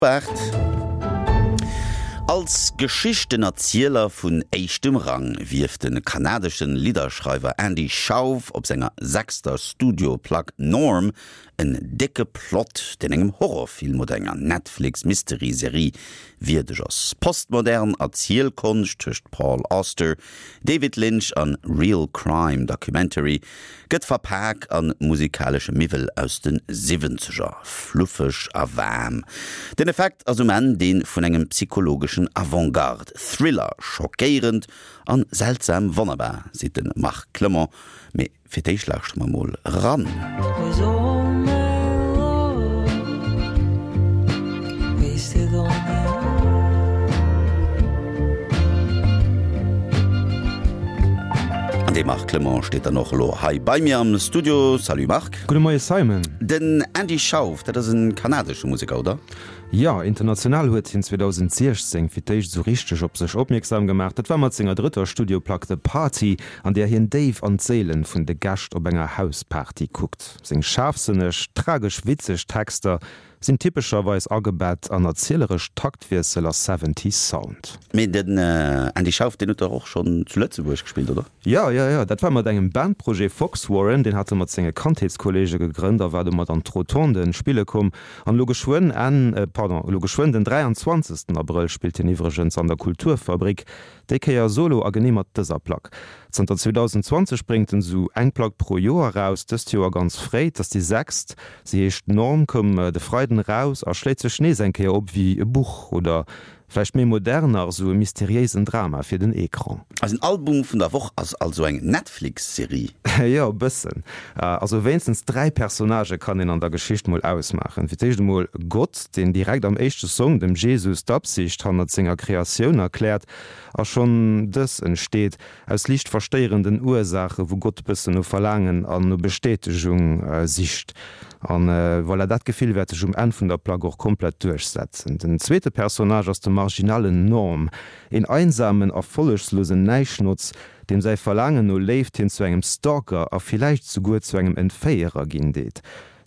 8. Als Geschichtenerzieler vun éischtem Rang wierft de kanadesche Lidderschreiwer Andy Shauf op senger sechster Studioplack Norm en décke Plot, deen engem Horrorfilm oder enger Netflix-Mystery-Serie wierdeg ass. Postmodern Erzielkonscht tëscht Paul Auster, David Lynch an Real Crime Documentary Gëtt verpak an musikalesche Miwwel aus de Siwwenzeger, fluffeg a waarm. Den Effekt ass um Enn dee vun engem psychologeschen Avantgarde Thriller, schockéierend an seltsam wonnerbar, seet de Marc Clement. Mee fir d'éischt lauschtere mer mol eran. An dee Marc Clement steet dann och elo hei bei mir am Studio. Salut Marc. Gudde Moie Simon. Den Andy Schauf, dat ass en kanadesche Museker, oder? Jo, international huet hien 2016 fir d'éischt esou richteg op sech opmierksam gemaach. Dat war mat senger drëtter Studioplack The Party, an där hien déif an d'Séilen vun de Gäscht op enger Hausparty kuckt. Seng schaarfsënneg, tragesch witzeg Texter Sinn typescherweis agebett an erzieleresch Taktwiessel a Seventies Sound. Mee den Andy Schauf, deen huet dach och schonn zu Lëtzebuerg gespillt, oder? Jo, jo, jo, dat war mat engem Bandprojet Fox Warren, deen hat e mat senge Kandheetskollege gegrënnt a war domat an d'Rotonden spille komm. An elo geschwënn Enn, pardon, elo geschwënn den 23. Abrëll spillt hien iwwregens an der Kulturfabrik. Déi Kéier solo a genee mat dëser Plack. Zanter 2020 bréngt en sou eng Plack pro Joer raus, dëst Joer ganz fréi, 't ass déi sechst. Se heescht Norm, koum de Freiden eraus a schléit sech nees eng Kéier op wéi e Buch oder vläicht méi modern nach esou e mysteriéisen Drama fir den Ecran. Eisen Album vun der Woch ass also eng Netflix-Serie. Jo, e bëssen. Also wéinstens 3 Personnagë kann een an der Geschicht mol ausmaachen. Fir d'éischt emol Gott, deen direkt am éischte Song dem Jesus d'Absicht hannert senger Kreatioun erkläert. A schonn dës entsteet aus liicht verstéierenden Ursaache wou Gott bëssen no Verlaangen an no Bestätegung sicht. An voilà, dat Gefill wäert sech um Enn vun der Plack och komplett duerchsetzen. Den zweete Personnage ass de marginalen Norm, een einsamen, erfollegslosen Näischnotz, deem säi Verlaangen no Léift hien zu engem Stalker a villäicht souguer zu engem Entféierer ginn deet.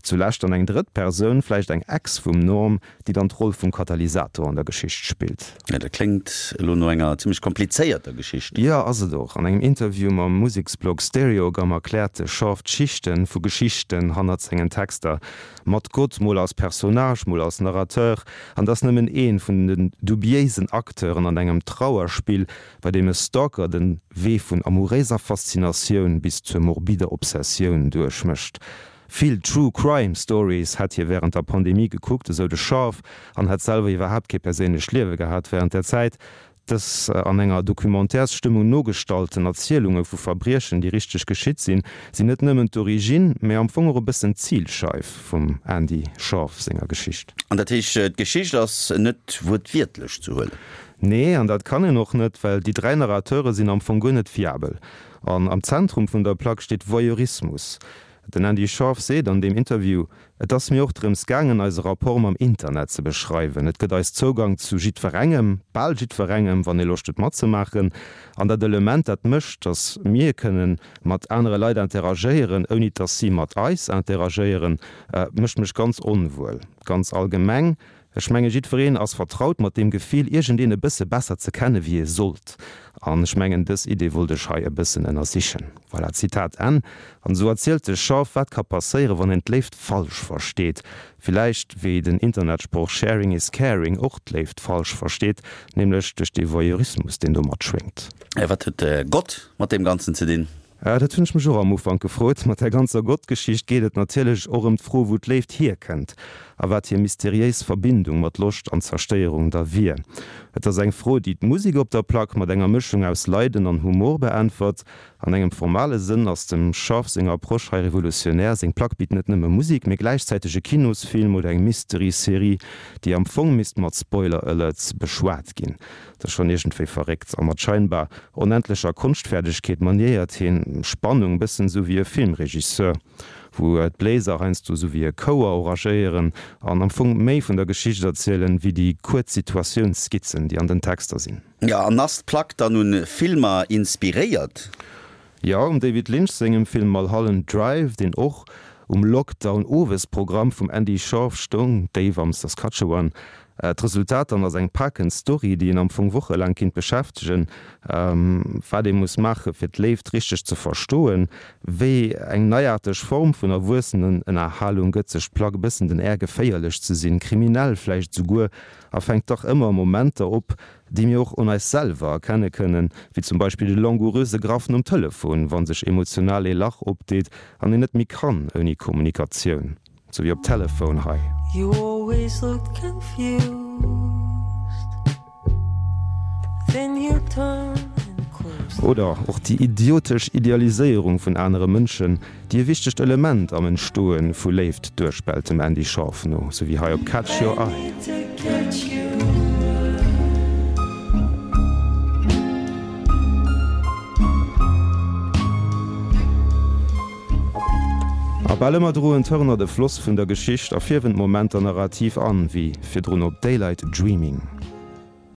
Zulescht dann eng drëtt Persoun, vläicht eng Ex vum Norm, déi dann d'Roll vum Katalysator an der Geschicht spillt. Ja, dat kléngt elo no enger zimmlech komplizéierter Geschicht. Jo, ass et och. An engem Interview mam Museksblog Stereogum erkläert de Shaft d'Schichte vu Geschichten hannert sengen Texter, mat Gott mol als Personnage, mol als Narrateur, an dass nëmmen ee vun den dubiéisen Acteuren an engem Trauerspill, bei deem e Stalker den Wee vun amouréiser Faszinatioun bis zur morbider Obsessioun duerchmécht. Vill True Crime Stories hätt hie wärend der Pandemie gekuckt, esou de Scharf, an hätt selwer iwwerhaapt kee perséinlecht Liewe gehat wärend där Zäit. Dës an enger Documentairsstëmmung nogestallten Erzielunge vu Verbriechen, déi richteg geschitt sinn, sinn net nëmmen d'Origine, mä am Fong och e bëssen d'Zilscheif vum Andy Scharf senger Geschicht. An dat heescht, d'Geschicht ass net wuertwiertlech ze huelen? Nee, an dat kann een och net, well déi 3 Narrateure sinn am Fong guer net fiabel. An am Zentrum vun der Plack steet Voyeurismus. Den Andy Scharf seet an deem Interview, Et ass mir och drëms gaangen, eise Rapport mam Internet ze beschreiwen. Et gëtt eis Zougang zu jiddwerengem, bal jiddwerengem, wann ee Loscht huet matzemaachen. An dat Element, dat mécht, datt mir kënne mat anere Leit interagéieren, ouni datt si mat eis interagéieren, mécht mech ganz onwuel. Ganz allgemeng Ech menge jiddwereen ass vertraut mat deem Gefill, iergendeen e bësse besser ze kenne wéi ee sollt. An ech mengen, dës Idee wollt ech hei e bëssen ënnersichen. Voilà, Zitat Enn. An esou erzielt de Schaff, wat ka passéieren, wann een d'Léift falsch versteet. Villäicht wéi den Internetsproch Sharing is caring och d'Léift falsch versteet, nämlech duerch dee Voyeurismus, deen do matschwéngt. Wat huet Gott mat deem Ganzen ze dinn? Dat hunn ech mech och am Ufank gefrot. Mat där ganzer Gott-Geschicht geet et natierlech och ëm d'Fro, wou d'Léift hierkënnt a wat hir mysteriéis Verbindung mat Loscht an Zerstéierung da wier. Et ass eng Fro, déi d'Musek op der Plack mat enger Mëschung aus Leiden an Humor beäntwert. An engem formale Sënn ass dem Scharf seng Approche hei revolutionär, Seng Plack bitt net nëmme Musek, mee gläichzäiteg e Kinosfilm oder eng Mystery-Serie, déi am Fong misst mat Spoiler-Alerts beschwat ginn. Dat ass schonn iergendwéi verréckt. A mat scheinbar onendlecher Konschtfäerdegkeet maniéiert hien Spannung, bëssen esou wéi e Filmregisseur, wou d'Bléiser heiansdo esou wéi e Chouer oragéieren an am Fong méi vun der Geschicht erzielen, wéi déi kuerz Situatiounsskizzen, déi an den Texter sinn. Jo, an ass d'Plack dann un Filmer inspiréiert? Jo, um David Lynch sengem Film Mulholland Drive, deen och um Lockdown-Owesprogramm vum Andy Schorff stoung, Déif am Saskatchewan. D'Resultat dann ass eng pakend Story, déi een am Fong wochelaang kinnt beschäftegen. Wat ee muss maache fir d'Léift richteg ze verstoen, wéi eng neiaarteg Form vun Erwuessenenënnerhalung gëtt sech d'Plack e bëssen den Air geféierlech ze sinn, kriminell vläicht esouguer, a fänkt dach ëmmer Momenter op, déi mir och un eis selwer erkenne kënnen, wéi zum Beispill de langouröse Graff nom Telefon, wa sech emotional ee Lach opdeet an een net méi kann ouni Kommunikatioun. Sou wéi op Telephone hei. You always looked confused Then you turn and close the Oder och déi idiotesch Idealiséierung vun anere Mënschen, déi e wichtegt Element am Entstoe vu Léift duerspellt, dem Andy Shauf no, sou wéi hei op Catch Your I Eye. need to catch your eye. A bal ëmmer droen d'Hörner de Floss vun der Geschicht a fierwen d'Momenter narrativ an, wéi virdrun op Daylight Dreaming.